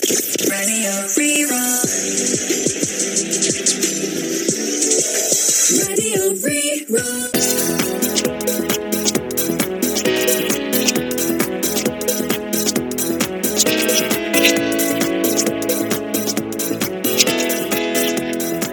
Raidió Rí-Rá. Raidió Rí-Rá.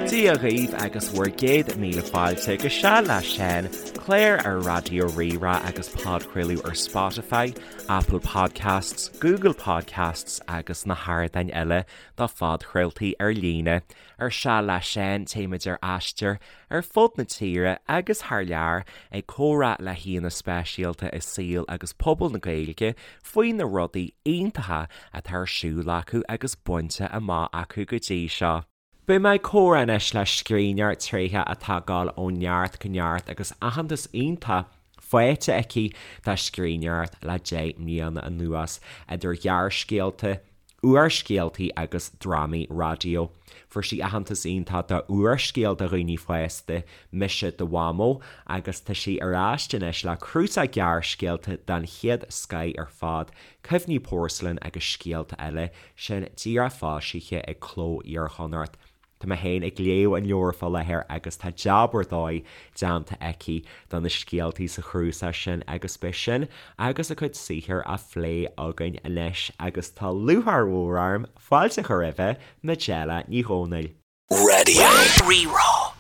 Dia dhaoibh agus bhur gcéad míle fáilte go Seal le Seán, clár ar Raidió Rí-Rá agus podchraoladh ar Spotify, Apple Podcasts, Google Podcasts agus na hardáin eile do phodchraoltaí ar líne. Ar Seal le Seán, téimid ar aistear ar fud na tíre agus thar lear ag comhrá le haíonna speisialta i saol agus pobal na Gaeilge faoi na rudaí iontacha atá ar siúl acu agus bainte amach acu go dtí seo. Beidh mé ag comhrá anois le scríbhneoir tréitheach atá ag dul ó neart go neart agus aitheantas iontach faighte aici dá scríbhneoireacht le 10 mbliana anuas, idir ghearrscéalta, úrscéaltaí agus drámaí raidió. Fuair sí aitheantas iontach dá úrscéal do dhaoine fásta, Mise do Mhamó, agus tá sí ar ais anois le cnuasach gearrscéalta den chéad scoith ar fad, Cuimhní Pórsalain agus Scéalta Eile, sin díreach foilsithe ag Cló Iar-Chonnacht. Tá mé féin ag léamh an leabhair fá láthair agus tá jab ar dóigh déanta aici do na scéaltaí sa chnuasach sin agus beidh sin agus a cuid saothair á phlé againn anois agus tá lúcháir mhór orm fáilte a chur roimhe, Majella Ní Dhomhnaill. Raidió Rí-Rá.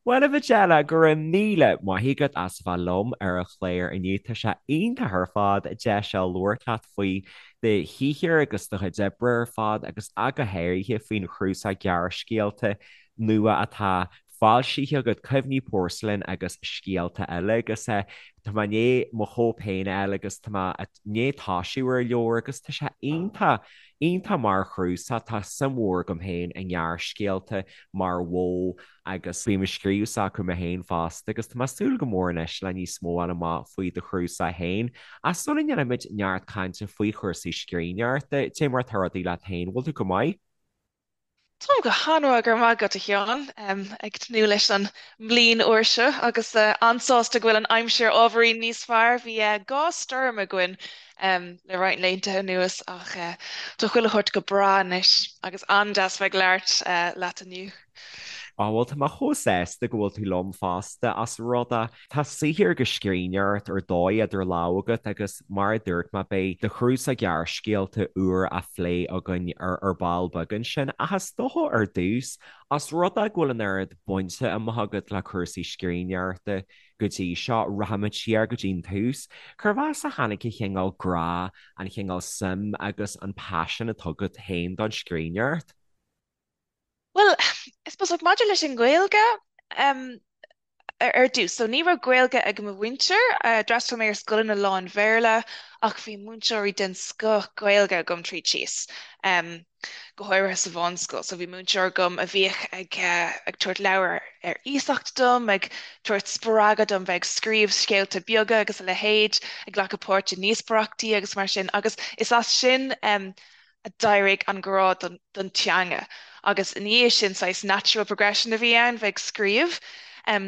Bhuel, a Mhajella, go raibh míle maith agat as a bheith liom ar an chlár inniu. Tá sé iontach ar fad deis a labhairt leat faoi do shaothar agus do chuid oibre ar fad agus ach go háirithe faoin chnuasach gearrscéalta nua atá foilsithe agat, Cuimhní Pórsalain agus Scéalta Eile. Agus tá mé i ndiaidh mo chóip féin a fháil agus tá mé i ndiaidh toisiú ar an leabhar agus tá sé iontach, iontach mar chnuasach. Tá suim mhór agam féin i ngearrscéalta mar mhodh agus bím ag scríobh s'acu mé féin fosta agus tá mé ag súil go mór anois le níos mó a fháil amach faoi do chnuasach féin. Ach sula ndéanaimid neart cainte faoi chúrsaí scríbhneoireachta, cad é mar atá rudaí leat féin, bhfuil tú go maith? Táim go han-mhaith, go raibh maith agat, a Sheáin. Ag tnúth leis an mbliain úr seo agus an-sásta go bhfuil an aimsir ábhairín níos fearr. Bhí 2 stoirm againn le roinnt laethanta anuas ach tá chuile shórt go breá anois agus an-deas bheith ag labhairt leat inniu. Á bhuel tá mé chomh sásta go bhfuil tú liom fosta ós rud é tá saothar agus scríbhneoireacht ar dóigh idir lámha agat agus mar a dúirt mé beidh do chnuasach gearrscéalta úr á phlé againn ar ar ball beag ansin ach is dócha ar dtús ós rud é go bhfuil an oiread bainte amach agat le cúrsaí scríbhneoireachta go dtí seo, rachaimid siar go dtí an tús. Cérbh as a tháinig an chineál grá, an chineál suim agus an paisean atá agat féin don scríbhneoireacht? Bhuel, I suppose, like, maidir leis an nGaeilge, em, ar dtús, so ní raibh Gaeilge ag mo mhuintir, d'fhreastail mé ar scoileanna lán-Bhéarla ach bhí múinteoirí den scoth Gaeilge agam tríd síos, em, go háirithe sa mheánscoil. So bhí múinteoir agam a bhíodh ag, ag tabhairt leabhar ar iasacht dom, ag tabhairt spreagadh dom bheith ag scríobh scéalta beaga agus a leithéid, ag glacadh páirt i ndíospóireachtaí agus mar sin agus is as sin, em, a d'éirigh an grá don teanga agus ina dhiaidh sin saghas natural progression a bhí ann bheith ag scríobh.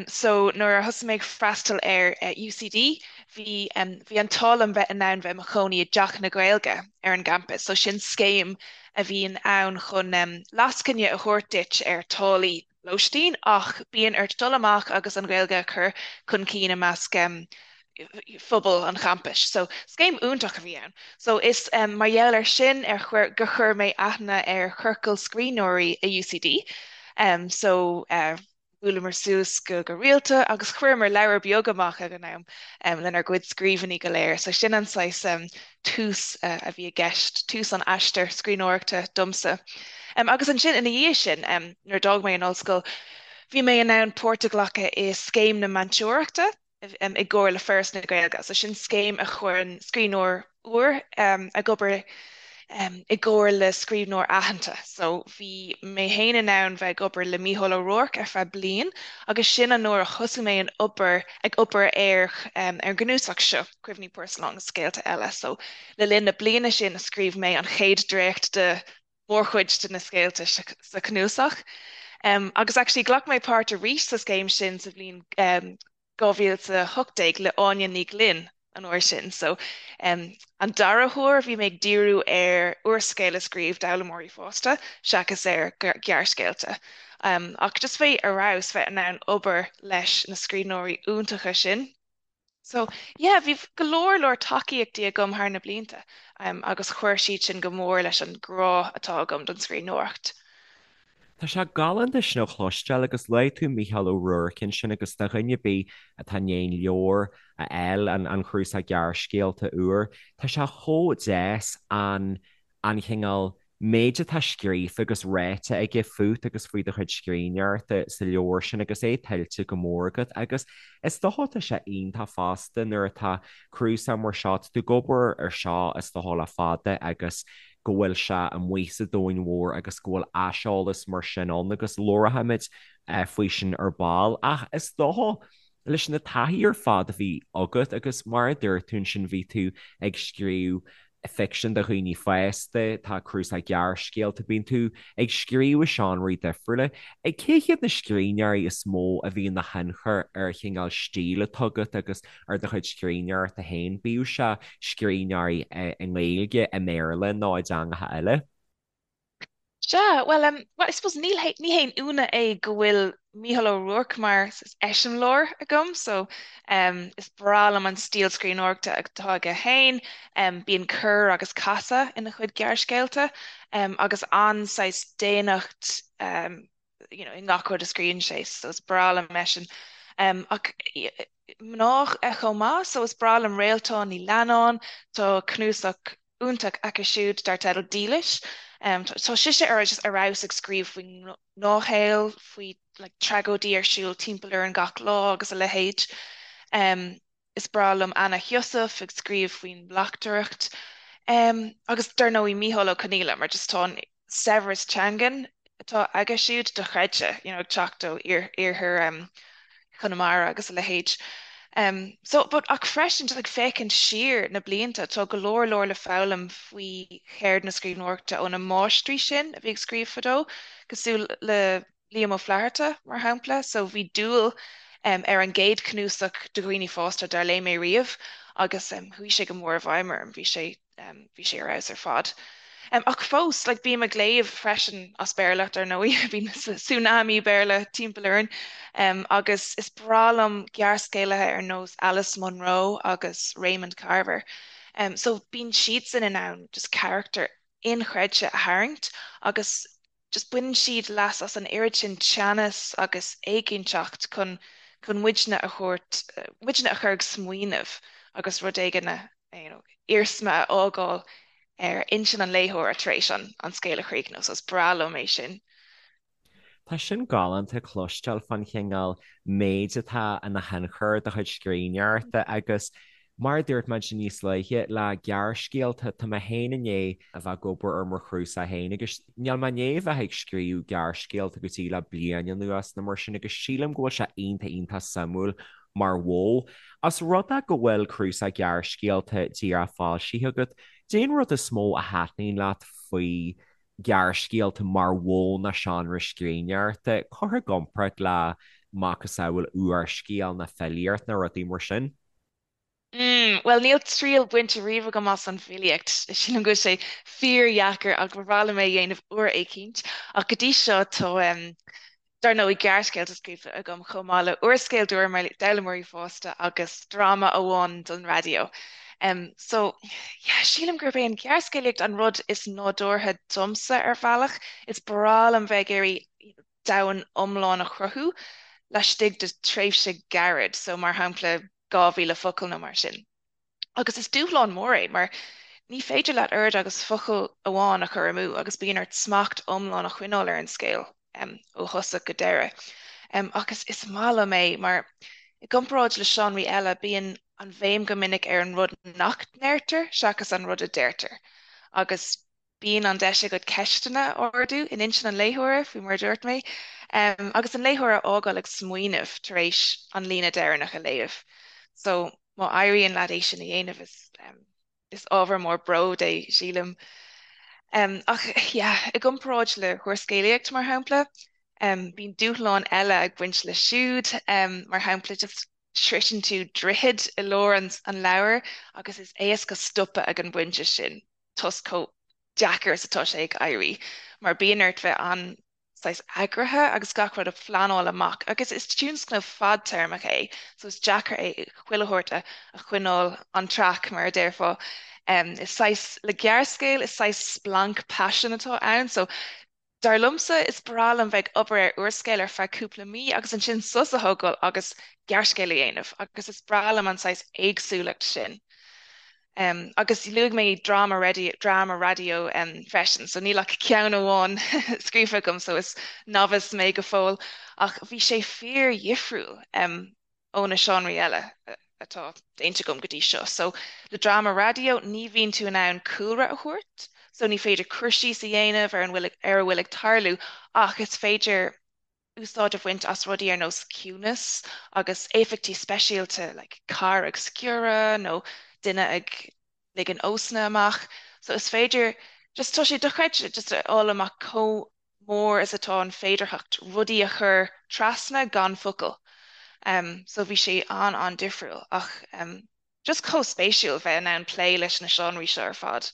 So nuair a thosaigh mé ag freastal ar UCD bhí bhí an t-ádh liom bheith in ann bheith i mo chónaí i dTeach na Gaeilge ar an gcampas. So sin scéim a bhíonn ann chun lascaine a thabhairt duit ar táillí lóistín ach bíonn ort dul amach agus an Ghaeilge a chur chun cinn i measc phobal an champais. So scéim iontach a bhí ann. So is mar gheall air sin ar chuir gur chuir mé aithne ar chiorcal scríbhneoirí i UCD. So bhuaileamar suas go go rialta agus chuireamar leabhar beag amach ag an am lenár gcuid scríbhinní go léir. So sin an saghas tús a bhí i gceist, tús an aistir scríbhneoireachta domsa. Agus ansin ina dhiaidh sin, nuair a d'fhág mé an ollscoil, bhí mé in ann páirt a ghlacadh i scéim na meantóireachta i gcomhar le Foras na Gaeilge. So sin scéim a chuireann scríbhneoir úr ag obair i gcomhar le scríbhneoir aitheanta. So bhí mé féin in ann bheith ag obair le Mícheál Ó Ruairc ar feadh bliain agus sin an uair a thosaigh mé an obair ag obair ar ar an gcnuasach seo. Cuimhní Pórsalain agus Scéalta Eile. So, le linn na bliana sin a scríobh mé an chéad dréacht de mhórchuid de na scéalta sa chnuasach. Agus actually ghlac mé páirt arís sa scéim sin sa bhliain 2018 le Áine Ní Ghlinn. an uair sin. So an dara huair bhí mé ag díriú ar úrscéal a scríobh d'fhoghlaimeoirí fásta seachas ar ghearrscéalta. Ach just bheith ar fheabhas bheith in ann obair leis na scríbhneoirí iontacha sin. So yeah, bhí go leor leor tacaíochtaí agam thar na blianta agus chuir siad sin go mór leis an grá atá agam don scríbhneoireacht. Tá sé galánta sin a chloisteáil agus luaigh tú Mícheál Ó Ruairc ansin agus do dhuine ar bith atá i ndiaidh an leabhar a fháil, an cnuasach gearrscéalta úr, tá sé chomh deas an an chineál méid atá scríofa agus ráite aige fút agus faoi do chuid scríbhneoireachta sa leabhar sin agus é tuillte go mór agat agus is dócha tá sé iontach fosta nuair atá cnuasach mar seo, tá tú ag obair ar seo is dócha le fada agus go bhfuil sé amuigh sa domhan mhór agus go bhfuil aiseolas mar sin ann agus labharfaimid faoi sin ar ball. Ach is dócha, leis na taithí ar fad a bhí agat agus mar a dúirt tú ansin bhí tú ag scríobh ficsean do dhaoine fásta, tá cnuasach gearrscéalta, bíonn tú ag scríobh i seánraí difriúla. Cé hiad na scríbhneoirí is mó a bhí ina thionchar ar an chineál stíl atá agat agus ar do chuid scríbhneoireachta féin, bíodh sé scríbhneoirí i nGaeilge, i mBéarla nó i dteangacha eile? Sea, bhuel, em, well, I suppose níl hé, ní haon ionadh é go bhfuil Mícheál Ó Ruairc mar eiseamláir agam, so, em, is breá liom an stíl scríbhneoireachta atá aige féin, em, bíonn cor agus casadh ina chuid gearrscéalta, em, agus an-saghas daonnacht, em, you know, i ngach rud a scríobhann sé, so is breá liom eisean. Em, ach mná chomh maith, so is breá liom Réaltán Ní Leannáin, tá cnuasach iontach aici siúd dar teideal Dílis. Tá sise ar just ar fheabhas ag scríobh faoin ngnáthshaol, faoi like tragóidí ar siúl timpeall orainn gach lá agus a leithéid. Is breá liom Anna Heussaff ag scríobh faoin mbleachtaireacht. Agus dar ndóigh Mícheál Ó Conghaile mar just tá an saibhreas teangan atá aige siúd dochreidte, you know, ag teacht ó iarthar Chonamara agus a leithéid. So, but ach freisin, just ag féachaint siar na blianta, tá go leor leor le foghlaim faoi cheird na scríbhneoireachta ó na máistrí sin a bhí ag scríobh fadó, cosúil le Liam Ó Flaithearta, mar shampla. So bhí Dúil ar an gcéad chnuasach do dhaoine fásta dár léigh mé riamh agus chuaigh sé go mór i bhfeidhm orm. Bhí sé bhí sé ar fheabhas ar fad. Ach fós, like, bím ag léamh freisin as Béarla, dar ndóigh, bíonn tsunami Béarla timpeall orainn, agus is breá liom gearrscéalaithe ar nós Alice Munro agus Raymond Carver. So bíonn siadsan in ann just carachtair inchreidte a tharraingt agus just baineann siad leas as an oiread sin teannas agus éiginnteacht chun chun muidne a thabhairt, muidne a chur ag smaoineamh agus rud éigin a, you know, iarsma a fhágáil ar intinn an léitheora tar éis an an scéal a chríochnú. So is breá liom é sin. Tá sin galánta cloisteáil fán chineál méid atá ina thionchar ar do chuid scríbhneoireachta agus Mar a dúirt mé ansin níos luaithe, le gearrscéalta, tá mé féin i ndiaidh a bheith ag obair ar mo chnuasach féin agus níl mé i ndiaidh a bheith ag scríobh gearrscéalta go dtí le bliain anuas nó mar sin agus sílim go bhfuil sé iontach iontach suimiúil mar mhodh. Os rud é go bhfuil cnuasach gearrscéalta díreach foilsithe agat, cad é an rud is mó a thaitníonn leat faoi ghearrscéalta mar mhodh nó seánra scríbhneoireachta, curtha i gcomparáid le macasamhail úrscéal nó filíocht nó rudaí mar sin? Mm, bhuel, níl triail bainte riamh agam as an bhfilíocht. Sílim go bhfuil sé fíordheacair ach ba bhreá liom é a dhéanamh uair éicint. Ach go dtí seo tá, em, dar ndóigh, gearrscéalta scríofa agam chomh maith le úrscéal d'fhoghlaimeoirí fásta agus dráma amháin don raidió. Em, so, yeah, sílim gurb é an ghearrscéalaíocht an rud is nádúrtha domsa ar bhealach. Is breá liom bheith ag iarraidh domhan iomlán a chruthú laistigh de tréimhse gairid, so mar shampla 2,000 focal nó mar sin. Agus is dúshlán mór é mar ní féidir leat oiread agus focal amháin a chur amú agus bíonn ort smacht iomlán a choinneáil ar an scéal ó thosach go deireadh. Ach is is maith liom é mar i gcomparáid le seánraí eile bíonn an bhéim go minic ar an rud nach ndeirtear seachas an rud a deirtear. Agus Bíonn an deis agat ceisteanna a ardú in intinn an léitheora, faoi mar a dúirt mé, agus an léitheoir a fhágáil ag smaoineamh tar éis an líne deireanach a léamh. So, má éiríonn leat é sin a dhéanamh, is is ábhar mór bróid é, sílim. Ach, yeah, i gcomparáid le húrscéalaíocht, mar shampla, bíonn dúshláin eile ag baint leis siúd, mar shampla, just. sroiseann tú droichead i lár an leabhair agus is éasca stopadh ag an bpointe sin toisc chomh deacair is atá sé ag éirí mar bíonn ort bheith an saghas eagraithe agus gach rud a phleanáil amach agus is tionscnamh fadtéarmach é so is deacair é chuile shórt a choinneáil on track mar a déarfá. Is saghas, le gearrscéal, is saghas splanc paisin atá ann so dar liomsa is breá liom bheith ag obair ar úrscéal ar feadh cúpla mí agus ansin sos a thógáil agus gearrscéal a dhéanamh agus is breá liom an saghas éagsúlacht sin. Agus luaigh mé dráma dráma raidió freisin, so níl ach ceann amháin scríofa agam, so is novice mé go fóill, ach bhí sé fíor-dhifriúil ó na seánraí eile atá déanta agam go dtí seo. So le dráma raidió ní bhíonn tú in ann cúlra a thabhairt, so ní féidir cur síos a dhéanamh ar an bhfuil ar a bhfuil ag tarlú ach is féidir úsáid a bhaint as rudaí ar nós ciúnas agus éifeachtaí speisialta like carr ag sciorradh nó duine ag ligean osna amach. So is féidir just tá sé dochreidte just a fháil amach chomh mór is atá an féidearthacht rudaí a chur trasna gan focal. Um, so bhí sé an-an-difriúil ach um, Just chomh spéisiúil bheith in ann plé leis na seánraí seo ar fad.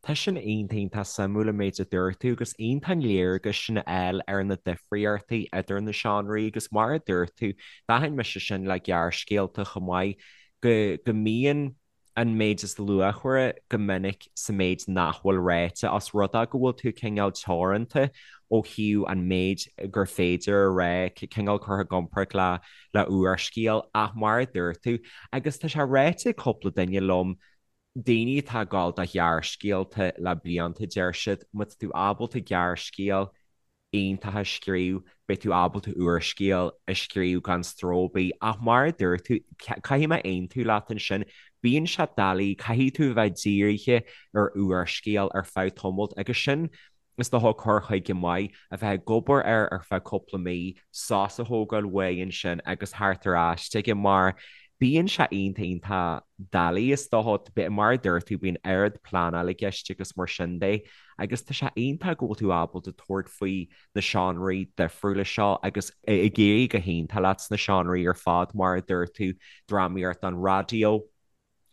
Tá sin iontach iontach suimiúil an méid a dúirt tú agus iontach an léargas sin a fháil ar na difríochtaí idir na seánraí agus mar a dúirt tú, d'aithin mise sin le gearrscéalta chomh maith, go go mbíonn an méid is luachmhaire go minic sa méid nach bhfuil ráite, os rud é go bhfuil tú cineál teoranta ó thaobh an méid gur féidir a rá, cineál curtha i gcomparáid le le úrscéal ach mar a dúirt tú, agus tá sé ráite ag cúpla duine liom, daoine atá ag gabháil do ghearrscéalta le blianta, deir siad, má tá tú ábalta gearrscéal iontach a scríobh, beidh tú ábalta úrscéal a scríobh gan stró ar bith. Ach mar a dúirt tú, caithfidh mé aontú leat ansin, bíonn sé doiligh, caithfidh tú a bheith dírithe ar úrscéal ar feadh tamaill agus sin Is dócha cur chuige maith a bheith ag obair air ar feadh cúpla mí, sos a thógáil uaidh ansin agus theacht ar ais chuige mar bíonn sé iontach iontach doiligh is dócha, mar a dúirt tú bíonn oiread pleanáil i gceist agus mar sin de agus tá sé iontach go bhfuil tú ábalta tabhairt faoi na seánraí difriúla seo agus ag éirí go hiontach leat sna seánraí ar fad mar a dúirt tú, drámaíocht don raidió.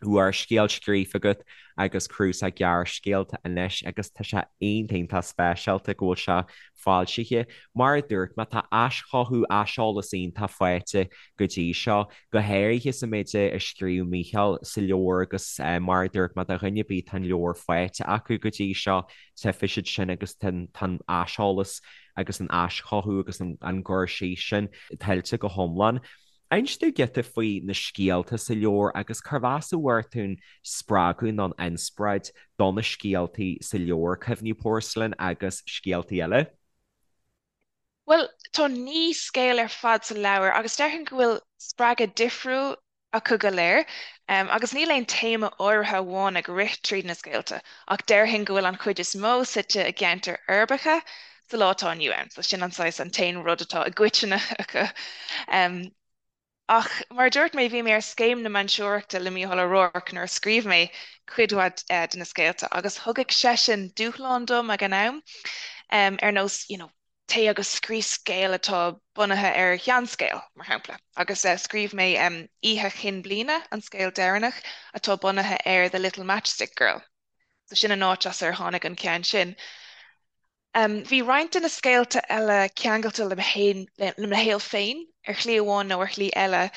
úrscéal scríofa agat agus cnuasach gearrscéalta anois agus tá sé iontach iontach speisialta go bhfuil sé foilsithe. Mar a dúirt mé, tá aischothú, aiseolas iontach faighte go dtí seo, go háirithe sa méid a scríobh Mícheál sa leabhar agus mar a dúirt mé, do dhuine ar bith atá an leabhar faighte acu go dtí seo, tchífidh siad sin agus tá an aiseolas agus an aischothú agus an cur síos sin tuillte go hiomlán. Inis domh giota faoi na scéalta sa leabhar agus cérbh as a bhfuair tú an spreagadh nó an inspioráid do na scéaltaí sa leabhar, Cuimhní Pórsailin agus Scéaltaí Eile. Bhuel, tá 9 scéal ar fad sa leabhar agus déarfainn go bhfuil spreagadh difriúil acu go léir. Agus níl aon téama áirithe amháin ag rith tríd na scéalta, ach déarfainn go bhfuil an chuid is mó suite i gceantair uirbeacha sa lá atá inniu ann. So sin an saghas, an t-aon rud atá i gcoitinne acu. Ach mar a dúirt mé, bhí mé ar Scéim na Múinteoireachta le Mícheál Ó Ruairc nuair a scríobh mé cuid mhaith de na scéalta agus thugadh seisean dúshlán dom ag an am, ar nós, you know, téigh agus scríobh scéal atá bunaithe ar sheanscéal, mar shampla. Agus scríobh mé Oíche Chinn Bliana, an scéal deireanach, atá bunaithe ar The Little Matchstick Girl. So sin an áit as ar tháinig an ceann sin. Bhí roinnt de na scéalta eile ceangailte le mo shaol féin ar shlí amháin nó ar shlí eile.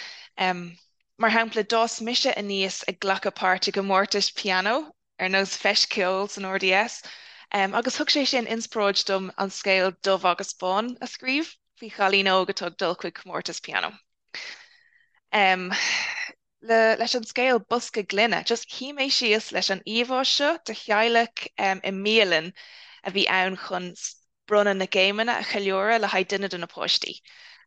Mar shampla, d'fhás mise aníos ag glacadh páirt i gcomórtais pianó ar nós Feis Ceoil san RDS, agus thug sé sin inspioráid dom an scéal Dubh agus Bán a scríobh, faoi chailín óg atá ag dul chuig comórtas pianó. Le, leis an scéal Bosca Gloine, just shuigh mé síos leis an íomhá seo de theaghlach i mbialann a bhí ann chun bronnadh na gcéimeanna a cheiliúradh le haghaidh duine de na páistí.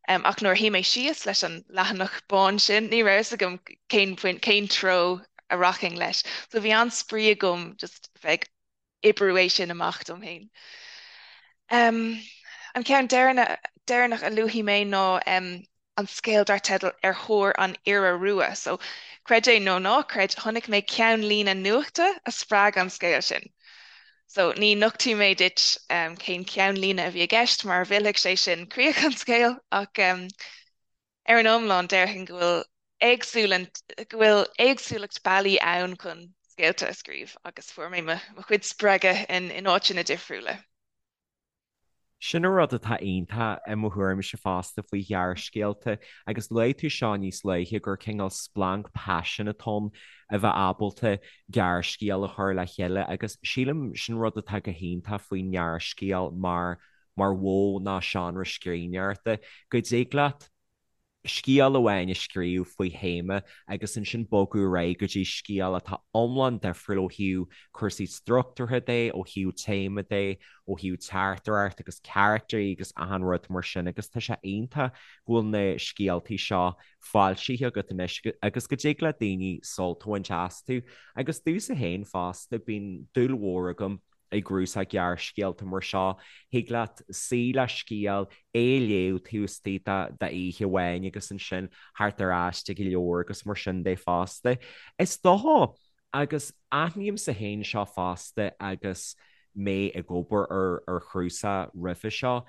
Ach nuair a shuigh mé síos leis an leathanach bán sin, ní raibh a fhios agam cén cén treo a rachainn leis. So bhí an-spraoi agam just bheith ag oibriú é sin amach dom féin. An ceann deireanach a luafaidh mé ná an scéal dar teideal Ar Thóir an Iora Rua. So, creid é nó ná creid, chonaic mé ceannlíne nuachta a spreag an scéal sin. So, ní nochtfaidh mé duit cén ceannlíne a bhí i gceist mar mhillfeadh sé sin críoch an scéil, ach. ar an iomlán déarfainn go bhfuil éagsúlacht, go bhfuil éagsúlacht bealaí ann chun scéalta a scríobh agus fuair mé mo chuid spreagadh in áiteanna difriúla. Sin an rud atá iontach i mo thuairimse fosta faoi ghearrscéalta, agus luaigh tú seo níos luaithe, gur cineál splanc paisin atá ann a bheith ábalta gearrscéal a chur le chéile agus sílim sin rud atá go hiontach faoin ngearrscéal mar mar mhodh nó seánra scríbhneoireachta, go dtig leat scéal amháin a scríobh faoi théama agus ansin bogadh ar aghaidh go dtí scéal atá iomlán difriúil ó thaobh cúrsaí struchtúrtha de, ó thaobh téama de, ó thaobh teachtaireacht agus caractairí agus achan rud mar sin agus tá sé iontach go bhfuil na scéaltaí seo foilsithe agat anois agus go dtig le daoine sult a bhaint astu. Agus domhsa féin fosta, bíonn dúil mhór agam i gcnuasach gearrscéalta mar seo, thig leat suí le scéal, é a léamh taobh istigh d'oíche amháin agus ansin theacht ar ais ag an leabhar agus mar sin de fosta. Is dócha, agus aithnímse féin seo fosta agus mé ag obair ar chnuasach roimhe seo,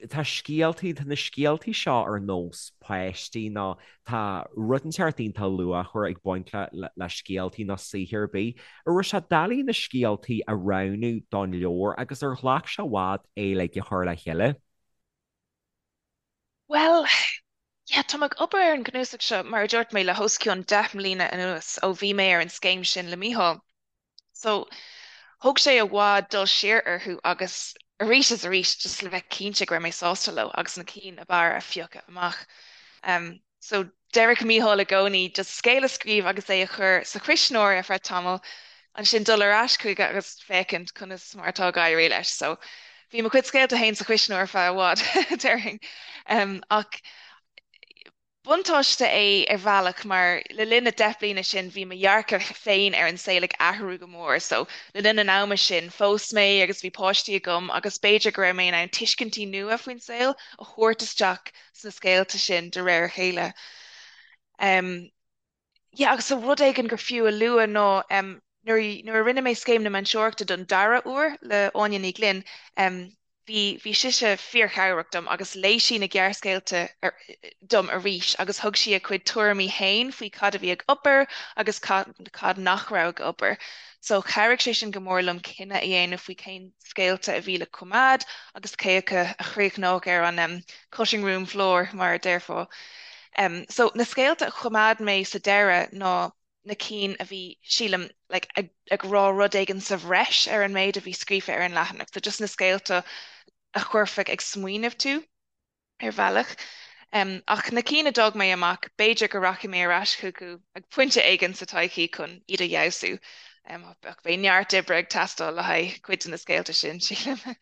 tá scéaltaí, tá na scéaltaí seo ar nós páistí nó tá rud inteacht iontach luachmhar ag baint le le scéaltaí nó saothar ar bith. An raibh sé doiligh na scéaltaí a roghnú don leabhar agus ar ghlac sé i bhfad é uilig a chur le chéile? Bhuel, yeah, tá mé ag obair ar an gcnuasach seo, mar a dúirt mé, le hos cionn 10 mbliana anuas ó bhí mé ar an scéim sin le Mícheál. So, thóg sé i bhfad dul siar orthu agus arís is arís just le bheith cinnte go raibh mé sásta leo agus na cinn ab fhearr a phiocadh amach. So, deireadh Mícheál i gcónaí just scéal a scríobh agus é a chur sa chuisneoir ar feadh tamaill, ansin dul ar ais chuige agus féachaint conas mar atá ag éirí leis. So, bhí mo chuid scéalta féin sa chuisneoir ar feadh i bhfad, déarfainn. Ach Buntáiste é ar bhealach mar le linn na 10 bliana sin bhí mo dhearcadh féin ar an saol ag athrú go mór so le linn an ama sin phós mé agus bhí páistí agam agus b'fhéidir go raibh mé in ann tuiscintí nua faoin saol a thabhairt isteach sna scéalta sin de réir a chéile. Yeah agus so rud éigin gur fiú a lua ná nuair nuair a rinne mé Scéim na Múinteoireachta don dara huair le Áine Ní Ghlinn, bhí bhí sise fíorchabhrach dom agus léigh sí na gearrscéalta dom arís agus thug sí a cuid tuairimí féin faoi cad a bhí ag obair agus cad cad nach raibh ag obair. So chabhraigh sé sin go mór liom cinneadh a dhéanamh faoi cén scéalta a bhí le coimeád agus cé acu a chríochnódh ar an cutting room floor mar a déarfá. So na scéalta a choimeád mé sa deireadh ná na cinn a bhí, sílim, like, ag, ag rá rud éigin sa bhreis ar an méid a bhí scríofa ar an leathanach. So just na scéalta a chuirfeadh ag smaoineamh tú ar bhealach. Um, ach na cinn a d'fhág mé amach, b'fhéidir go rachaidh mé ar ais chucu ag pointe éigin sa todhchaí chun iad a fheabhsú. Um, ach beidh neart oibre ag teastáil le haghaidh cuid de na scéalta sin, sílim.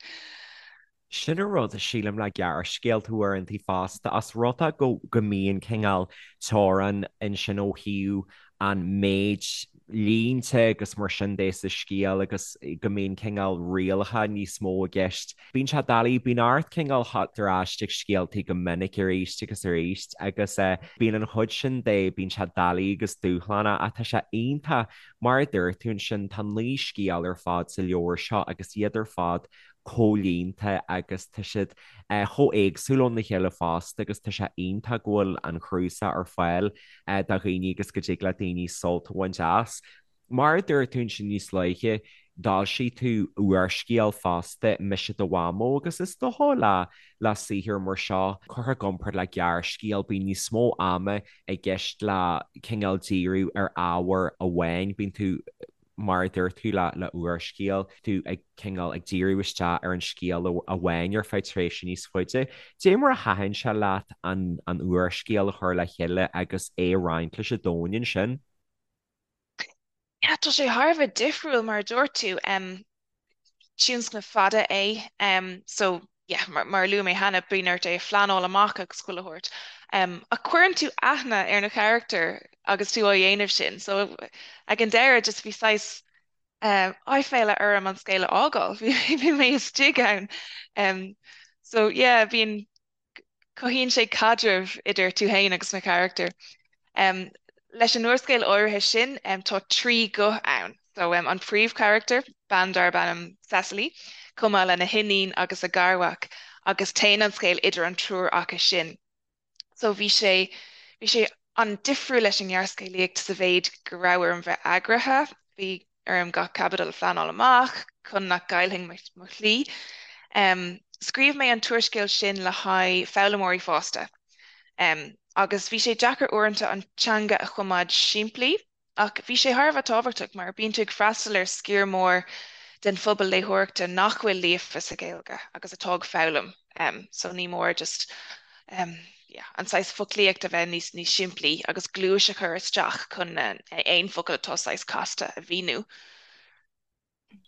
Sin an rud, sílim, le gearrscéalta uaireanta fosta, ós rud é go go mbíonn cineál teorainn ansin ó thaobh an méid línte agus mar sin de sa scéal agus go mbíonn cineál rialacha níos mó i gceist. Bíonn sé doiligh, bíonn ort cineál theacht ar ais ag scéaltaí go minic arís agus arís agus bíonn an chuid sin de, bíonn sé doiligh agus dúshlánach ach tá sé iontach, mar a dúirt tú ansin, tá 9 scéal ar fad sa leabhar seo agus iad ar fad comhlíonta agus tá siad chomh éagsúil óna chéile fosta agus tá sé iontach go bhfuil an cnuasach ar fáil do dhaoine agus go dtig le daoine sult a bhaint as. Mar a dúirt tú ansin níos luaithe, d'fhoilsigh tú úrscéal fosta, Mise do Mhamó, agus is dócha le le saothar mar seo, curtha i gcomparáid le gearrscéal, bíonn níos mó ama i gceist le cineál díriú ar ábhar amháin, bíonn tú mar a dúirt tú le le úrscéal, tú ag cineál ag díriú isteach ar an scéal amháin ar feadh tréimhse níos faide. Dé mar a thaitin sé leat an an úrscéal a chur le chéile agus é a roinnt leis an domhan ansin? Yeah, tá sé thar a bheith difriúil mar a dúirt tú. Um, tionscnamh fada é. Um, so yeah, mar, mar a luaigh mé cheana, bíonn ort é a phleanáil amach agus chuile shórt. Um, ach cuireann tú aithne ar na carachtair agus tú á dhéanamh sin. So ag an deireadh just bhí saghas um, aiféala orm an scéal a fhágáil. Bhí bhí mé istigh ann. Um, so yeah, bíonn cothaíonn sé caidreamh idir tú féin agus na carachtair. Leis an úrscéal áirithe sin, tá 3 ghuth ann. So, an príomhcharachtar, bean darb ainm Cecily, chomh maith lena hiníon agus a garmhac, agus téann an scéal idir an triúr acu sin. So bhí sé, bhí sé an-difriúil leis an ngearrscéalaíocht sa mhéid go raibh orm bheith eagraithe, bhí orm gach caibidil a phleanáil amach chun nach gcaillfinn mo shlí. Scríobh mé an t-úrscéal sin le haghaidh foghlaimeoirí fásta agus bhí sé deacair uaireanta an teanga a choimeád simplí. Ach bhí sé thar a bheith tábhachtach mar bíonn tú ag freastal ar sciar mór den phobal léitheoireachta nach bhfuil líofa sa Ghaeilge agus atá ag foghlaim so ní mór just yeah an saghas foclaíocht a bheith níos níos simplí agus gluais a chur isteach chun aon focal atá saghas casta a mhíniú.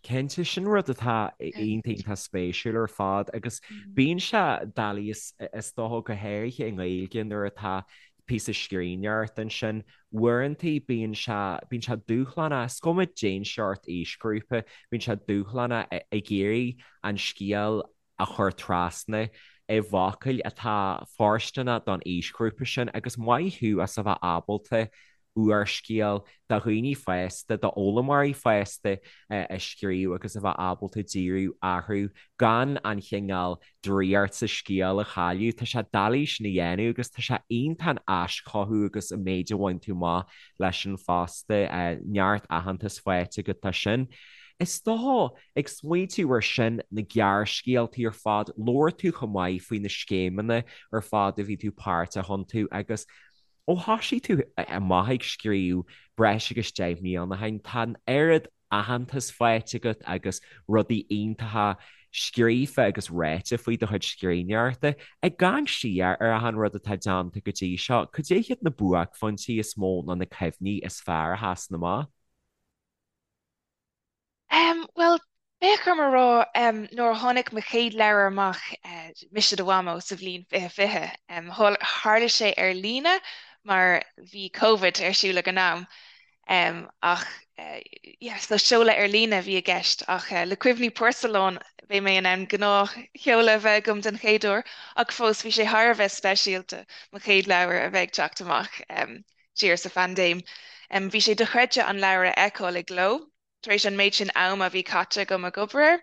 Cinnte, sin rud atá iontach iontach spéisiúil ar fad agus bíonn sé doiligh is dócha go háirithe i nGaeilge nuair atá píosa scríbhneoireachta ansin, uaireanta bíonn sé, bíonn sé dúshlánach, is cuma cén seort aoisghrúpa, bíonn sé dúshlánach ag iarraidh an scéal a chur trasna i bhfocail atá fóirsteanach don aoisghrúpa sin agus maith thú as a bheith ábalta úrscéal do dhaoine fásta, d'fhoghlaimeoirí fásta a scríobh agus a bheith ábalta díriú orthu gan an chineál draíocht sa scéal a chailleadh. Tá sé doiligh sin a dhéanamh agus tá sé iontach an aischothú agus an méid a bhain tú amach leis sin fosta. Neart aitheantas faighte agat as sin. Is dócha Ag smaointiú ar sin, na gearrscéaltaí ar fad, labhair tú chomh maith faoi na scéimeanna ar fad a bhí tú páirteach iontu agus ó thoisigh tú amach ag scríobh breis agus 10 mbliana ó shin, tá an oiread aitheantas faighte agat agus rudaí iontacha scríofa agus ráite faoi do chuid scríbhneoireachta. Ag amharc siar ar achan rud atá déanta go dtí seo, cad é hiad na buaicphointí is mó nó na cuimhní is fearr a sheasann amach? Bhuel, bheadh orm a rá, nuair a tháinig mo chéad leabhar amach, Mise do Mhamó, sa bhliain 2020, tharla sé ar líne mar bhí Covid ar siúl ag an am, ach yeah, so seoladh ar líne a bhí i gceist, ach le Cuimhní Porcelán beidh mé in ann gnáthsheoladh a bheith agam den chéad uair, ach fós bhí sé thar a bheith speisialta mo chéad leabhar a bheith ag teacht amach siar sa phaindéim. Bhí sé dochreidte an leabhar a fheiceáil i gcló. tar éis an méid sin ama a bhí caite agam ag obair air,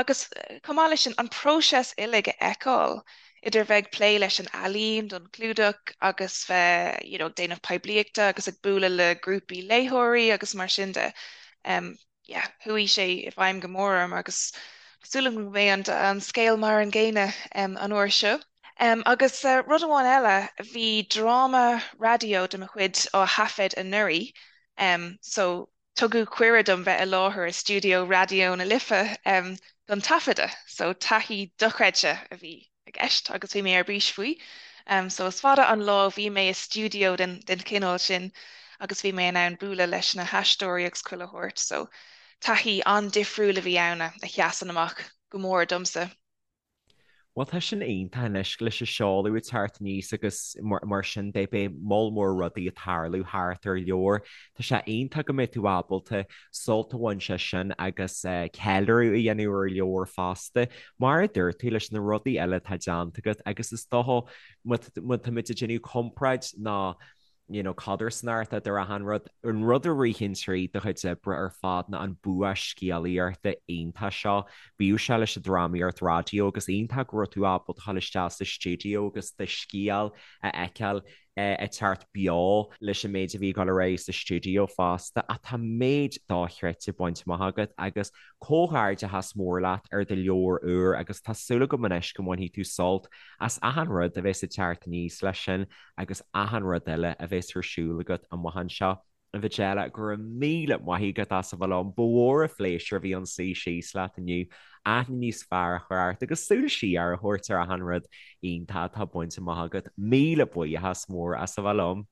agus chomh maith leis sin, an próiseas uilig a fheiceáil, idir bheith ag plé leis an ealaín don chlúdach agus bheith you know ag déanamh poiblíochta agus ag bualadh le grúpaí léitheoirí agus mar sin de. Um, yeah, chuaigh sé i bhfeidhm go mór orm agus tá súil agam go mbeidh an, an scéal mar an gcéanna um, an uair seo. Um, agus uh, rud amháin eile, bhí dráma raidió de mo chuid á thaifead anuraidh, um, so Tugadh cuireadh dom bheith i láthair i stiúideo Raidió na Life don taifeadadh, so taithí dochreidte a bhí i gceist agus bhí mé ar bís faoi. So is fada an lá ó bhí mé i stiúideo den chineál sin agus bhí mé in ann bualadh leis na haisteoirí agus chuile shórt, so taithí an-difriúil a bhí ann a sheasann amach go mór domsa. Bhuel, tá sin iontach anois leis an seoladh ag teacht aníos agus mar sin de, beidh moll mór rudaí ag tarlú thart ar leabhar. Tá sé iontach go mbeidh tú ábalta sult a bhaint as sin agus ceiliúradh a dhéanamh ar leabhar fosta. Mar a dúirt tú, leis na rudaí eile atá déanta agat agus is dócha má táimid ag déanamh comparáid ná you know, codarsnacht idir achan rud. An rud a ritheann tríd do chuid oibre ar fad ná an bua scéalaíochta iontach seo. Bíodh sé leis an drámaíocht raidió agus iontach go raibh tú ábalta dul isteach sa stiúideo agus do scéal a fheiceáil ag teacht beo leis an méid a bhí ag dul ar aghaidh sa stiúideo fosta. Ach tá méid dochreidte bainte amach agat agus comhghairdeachas mór leat ar do leabhar úr agus tá súil agam anois go mbainfidh tú sult as achan rud a bheas ag teacht aníos leis sin. agus achan rud eile a bheas ar siúl agat amach anseo. A Mhajella, go raibh míle maith agat as a bheith liom. Ba mhór an phléisiúr a bhí ann suí síos leat inniu, aithne níos fearr a chur ort agus súil siar a thabhairt ar achan rud iontach atá bainte amach agat. Míle buíochas mór as a bheith liom.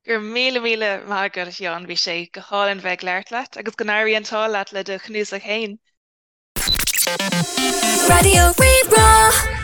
Go raibh míle míle maith agat, a Sheáin. Bhí sé go hálainn bheith ag labhairt leat agus go n-éirí an t-ádh leat le do chnuasach féin. Raidió Rí-Rá.